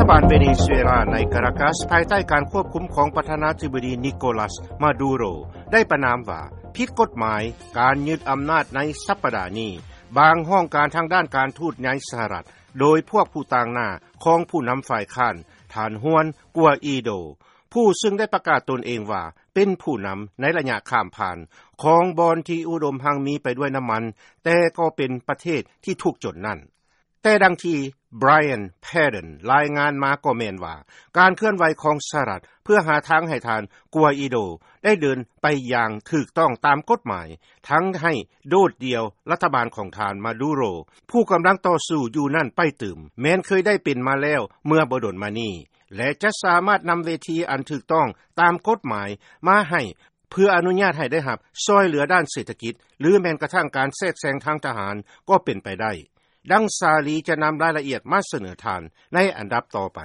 ບ້ານເວເນຊູເອລາໃນກາຣາກັສ ພາຍໃຕ້ການຄວບຄຸມຂອງປະທານາທິບໍດີນິໂກລັສ ມາດູໂຣ ໄດ້ປະນາມວ່າ ຜິດກົດໝາຍການຍຶດອຳນາດໃນສັບປະດານີ້. ບາງຫ້ອງການທາງດ້ານການທູດໃນສະຫະລັດ ໂດຍພວກຜູ້ຕາງໜ້າຂອງຜູ້ນຳຝ່າຍຄ້ານ ທ່ານ Juan Guaido ຜູ້ຊຶ່ງໄດ້ປະກາດຕົນເອງວ່າເປັນຜູ້ນຳໃນໄລຍະຂ້າມຜ່ານຂອງບ່ອນທີ່ອຸດົມຮັ່ງມີໄປດ້ວຍນ້ຳມັນ ແຕ່ກໍເປັນປະເທດທີ່ທຸກຈົນນັ້ນ. ແຕ່ດັ່ງທີ່ Brian Padden ລາຍງານມາກໍແມ່ນວ່າ ການເຄື່ອນໄຫວຂອງສະຫະລັດເພື່ອຫາທາງໃຫ້ທ່ານ Guaido ໄດ້ເດີນໄປຢ່າງຖືກຕ້ອງຕາມກົດໝາຍ ທັງໃຫ້ໂດດດ່ຽວລັດຖະບານຂອງທ່ານ ມາດູໂຣ ຜູ້ກຳລັງຕໍ່ສູ້ຢູ່ນັ້ນໄປຕື່ມ ແມ່ນເຄີຍໄດ້ເປັນມາແລ້ວເມື່ອບໍ່ດົນມານີ້ ແລະ ຈະສາມາດນຳເວທີອັນຖືກຕ້ອງຕາມກົດໝາຍມາໃຫ້ ເພື່ອອະນຸຍາດໃຫ້ໄດ້ຮັບຊ່ອຍເຫຼືອດ້ານເສດຖະກິດ ຫຼື ແມ່ນກະທັ້ງການແຊກແຊງທາງທະຫານກໍເປັນໄປໄດ້. ດັ່ງຊາລີຈະນຳລາຍລະອຽດມາສະເໜີທ່ານໃນອັນດັບຕໍ່ໄປ.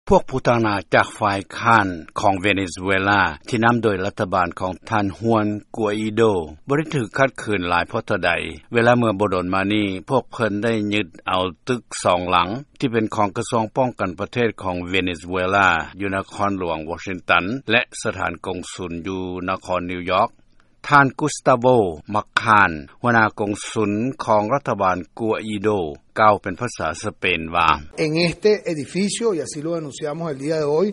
ພວກຜູ້ຕາງໜ້າຈາກຝ່າຍຄ້ານຂອງເວເນຊູເອລາ ທີ່ນຳໂດຍລັດຖະບານຂອງທ່ານ Juan Guaido ບໍ່ໄດ້ຖືກຂັດຂືນຫຼາຍພໍເທົ່າໃດ ເວລາເມື່ອບໍ່ດົນມານີ້ ພວກເພິ່ນໄດ້ຍຶດເອົາຕຶກສອງຫຼັງ ທີ່ເປັນຂອງກະຊວງປ້ອງກັນປະເທດຂອງເວເນຊູເອລາ ຢູ່ນະຄອນຫຼວງວໍຊິງຕັນ ແລະ ສະຖານກົງສຸນຢູ່ນະຄອນນິວຢອກ. ທ່ານ Gustavo Machan ຫົວໜ້າກົງສຸນຂອງລັດຖະບານ Guaido ກ່າວເປັນພາສາສະເປນວ່າ En este edificio, y así lo denunciamos el día de hoy,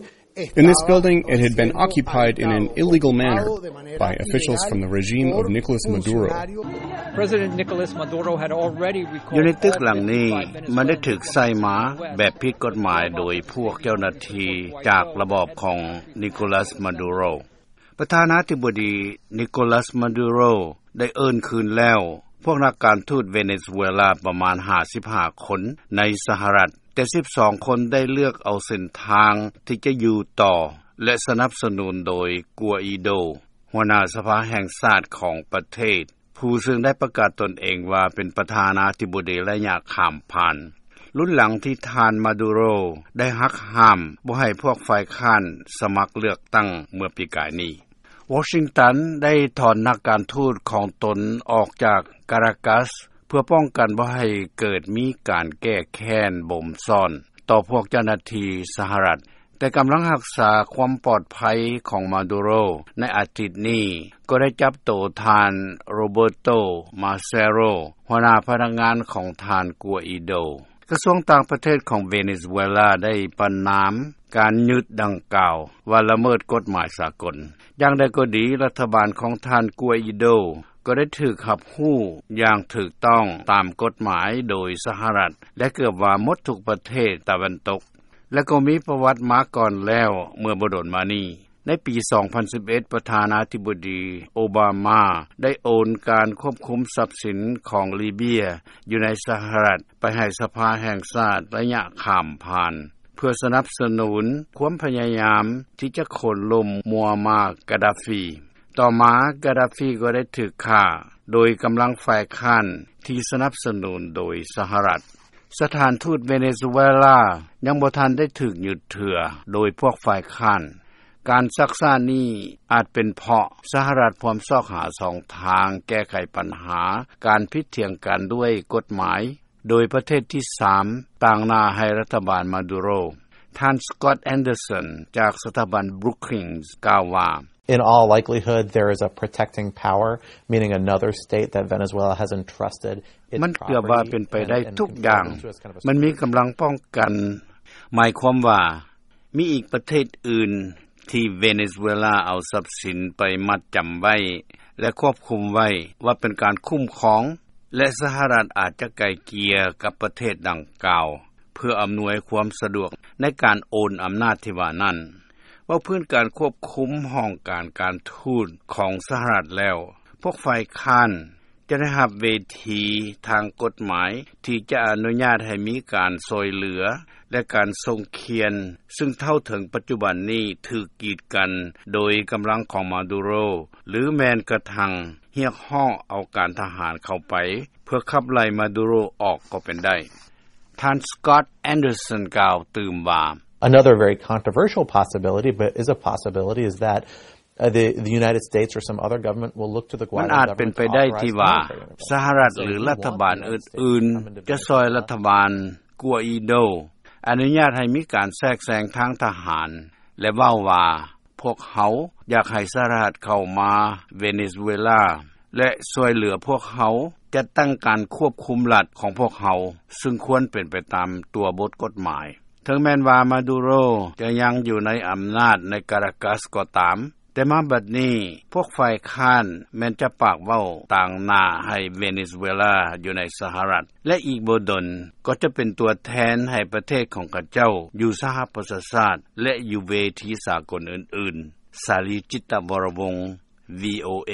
In this building, it had been occupied in an illegal manner by officials from the regime of Nicolas Maduro. President Nicolas Maduro had already recalled ຢູ່ໃນຕຶກຫຼັງນີ້ ມັນໄດ້ຖືກໃຊ້ມາແບບຜິດກົດໝາຍໂດຍພວກເຈົ້າໜ້າທີ່ຈາກລະບອບຂອງ Nicolas Maduro. ປະທານາທິບໍດີ Nicolas Maduro ໄດ້ເອີ້ນຄືນແລ້ວ ພວກນັກການທູດເວເນຊູເອລາປະມານຫ້າສິບຫ້າຄົນໃນສະຫະລັດ, ແຕ່ສິບສອງຄົນໄດ້ເລືອກເອົາເສັ້ນທາງທີ່ຈະຢູ່ຕໍ່ ແລະ ສະໜັບສະໜູນໂດຍ Guaido ຫົວໜ້າສະພາແຫ່ງຊາດຂອງປະເທດ, ຜູ້ເຊິ່ງໄດ້ປະກາດຕົນເອງວ່າເປັນປະທານາທິບໍດີໄລຍະຂ້າມຜ່ານ. ລຸນຫຼັງທີ່ທ່ານ Maduro ໄດ້ຫັກຫ້າມບໍ່ໃຫ້ພວກຝ່າຍຄ້ານສະໝັກເລືອກຕັ້ງເມື່ອປີກາຍນີ້. ວໍຊິງຕັນໄດ້ຖອນນັກການທູດຂອງຕົນອອກຈາກກາຣາກັສ ເພື່ອປ້ອງກັນບໍ່ໃຫ້ເກີດມີການແກ້ແຄ້ນບົ່ມຊ້ອນຕໍ່ພວກເຈົ້າໜ້າທີ່ສະຫະລັດ, ແຕ່ກຳລັງຮັກສາຄວາມປອດໄພຂອງ Maduro ໃນອາທິດນີ້ ກໍໄດ້ຈັບໂຕທ່ານ Roberto Massero ຫົວໜ້າພະນັກງານຂອງທ່ານ Guaido. ກະຊວງຕ່າງປະເທດຂອງເວເນຊູເອລາໄດ້ປະນາມການຍຶດດັ່ງກ່າວວ່າລະເມີດກົດໝາຍສາກົນ. ຢ່າງໃດກໍດີ, ລັດຖະບານຂອງທ່ານ Guaido ກໍໄດ້ຖືກຮັບຮູ້ຢ່າງຖືກຕ້ອງຕາມກົດໝາຍໂດຍສະຫະລັດ ແລະ ເກືອບວ່າໝົດທຸກປະເທດຕາເວັນຕົກ ແລະ ກໍມີປະຫວັດມາກ່ອນແລ້ວເມື່ອບໍ່ດົນມານີ້. ໃນປີສອງພັນສິບເອັດ ປະທານາທິບໍດີໂອບາມາໄດ້ໂອນການຄວບຄຸມຊັບສິນຂອງລີເບຍຢູ່ໃນສະຫະລັດໄປໃຫ້ສະພາແຫ່ງຊາດໄລຍະຂ້າມຜ່ານ ເພື່ອສະໜັບສະໜູນຄວາມພະຍາຍາມທີ່ຈະໂຄ່ນລົ້ມມົວມາກາດາຟີ. ຕໍ່ມາກາດາຟີກໍໄດ້ຖືກຂ້າໂດຍກຳລັງຝ່າຍຄ້ານທີ່ສະໜັບສະໜູນໂດຍສະຫະລັດ. ສະຖານທູດເວເນຊູເອລາຍັງບໍ່ທັນໄດ້ຖືກຍຶດເທື່ອໂດຍພວກຝ່າຍຄ້ານ. ການຊັກຊ້ານີ້ອາດເປັນເພາະສະຫະລັດພວມຊອກຫາຊ່ອງທາງແກ້ໄຂບັນຫາການຜິດຖຽງກັນດ້ວຍກົດໝາຍ ໂດຍປະເທດທີສາມຕາງໜ້າໃຫ້ລັດຖະບານມາດູໂຣ. ທ່ານ Scott Anderson ຈາກສະຖາບັນ Brookings ກ່າວວ່າ In all likelihood, there is a protecting power, meaning another state that Venezuela has entrusted its ມັນເກືອບວ່າເປັນໄປໄດ້ທຸກຢ່າງ. ມັນມີກຳລັງປ້ອງກັນ, ໝາຍຄວາມວ່າມີອີກປະເທດອື່ນທີ່ເວເນຊູເອລາເອົາຊັບສິນໄປມັດຈຳໄວ້ ແລະ ຄວບຄຸມໄວ້ວ່າເປັນການຄຸ້ມຄອງ ແລະ ສະຫະລັດອາດຈະໄກ່ເກ່ຍກັບປະເທດດັ່ງກ່າວ ເພື່ອອຳນວຍຄວາມສະດວກໃນການໂອນອຳນາດທີ່ວ່ານັ້ນ. ເວົ້າພື້ນການຄວບຄຸມຫ້ອງການການທູດຂອງສະຫະລັດແລ້ວ, ພວກຝ່າຍຄ້ານຈະໄດ້ຮັບເວທີທາງກົດໝາຍທີ່ຈະອະນຸຍາດໃຫ້ມີການຊ່ອຍເຫຼືອ ແລະ ການສົ່ງຄຽນ, ຊຶ່ງເທົ່າເຖິງປັດຈຸບັນນີ້ຖືກກີດກັນໂດຍກຳລັງຂອງມາດູໂຣ ຫຼື ແມ່ນກະທັ້ງຮຽກຮ້ອງເອົາການທະຫານເຂົ້າໄປ ເພື່ອຂັບໄລ່ມາດູໂຣອອກກໍເປັນໄດ້. ທ່ານ Scott Anderson ກ່າວຕື່ມວ່າ Another very controversial possibility, but is a possibility, is that, uh, the, the United States or some other government will look to the ມັນ Guaido ອາດເປັນໄປໄດ້ທີ່ວ່າ Guaido government to authorize the military intervention. ສະຫະລັດ ຫຼື ລັດຖະບານອື່ນໆ ຈະຊ່ອຍລັດຖະບານ Guaido. ອະນຸຍາດໃຫ້ມີການແຊກແຊງທາງທະຫານ ແລະເວົ້າວ່າ ພວກເຮົາຢາກໃຫ້ສະຫະລັດເຂົ້າມາເວເນຊູເອລາ ແລະຊ່ວຍເຫຼືອພວກເຮົາຈັດຕັ້ງການຄວບຄຸມລັດຂອງພວກເຮົາ ຊຶ່ງຄວນເປັນໄປຕາມຕົວບົດກົດໝາຍ. ເຖິງແມ່ນວ່າມາດູໂຣຈະຍັງຢູ່ໃນອຳນາດໃນກາຣາກັສກໍຕາມ ແຕ່ມາບັດນີ້ພວກຝ່າຍຄ້ານແມ່ນຈະປາກເວົ້າຕາງໜ້າໃຫ້ເວເນຊູເອລາຢູ່ໃນສະຫະລັດ ແລະອີກບໍ່ດົນກໍຈະເປັນຕົວແທນໃຫ້ປະເທດຂອງຂະເຈົ້າຢູ່ສະຫະປະຊາຊາດ ແລະຢູ່ເວທີສາກົນອື່ນໆ. ສາລີ ຈິດຕະວໍລະວົງ ວີໂອເອ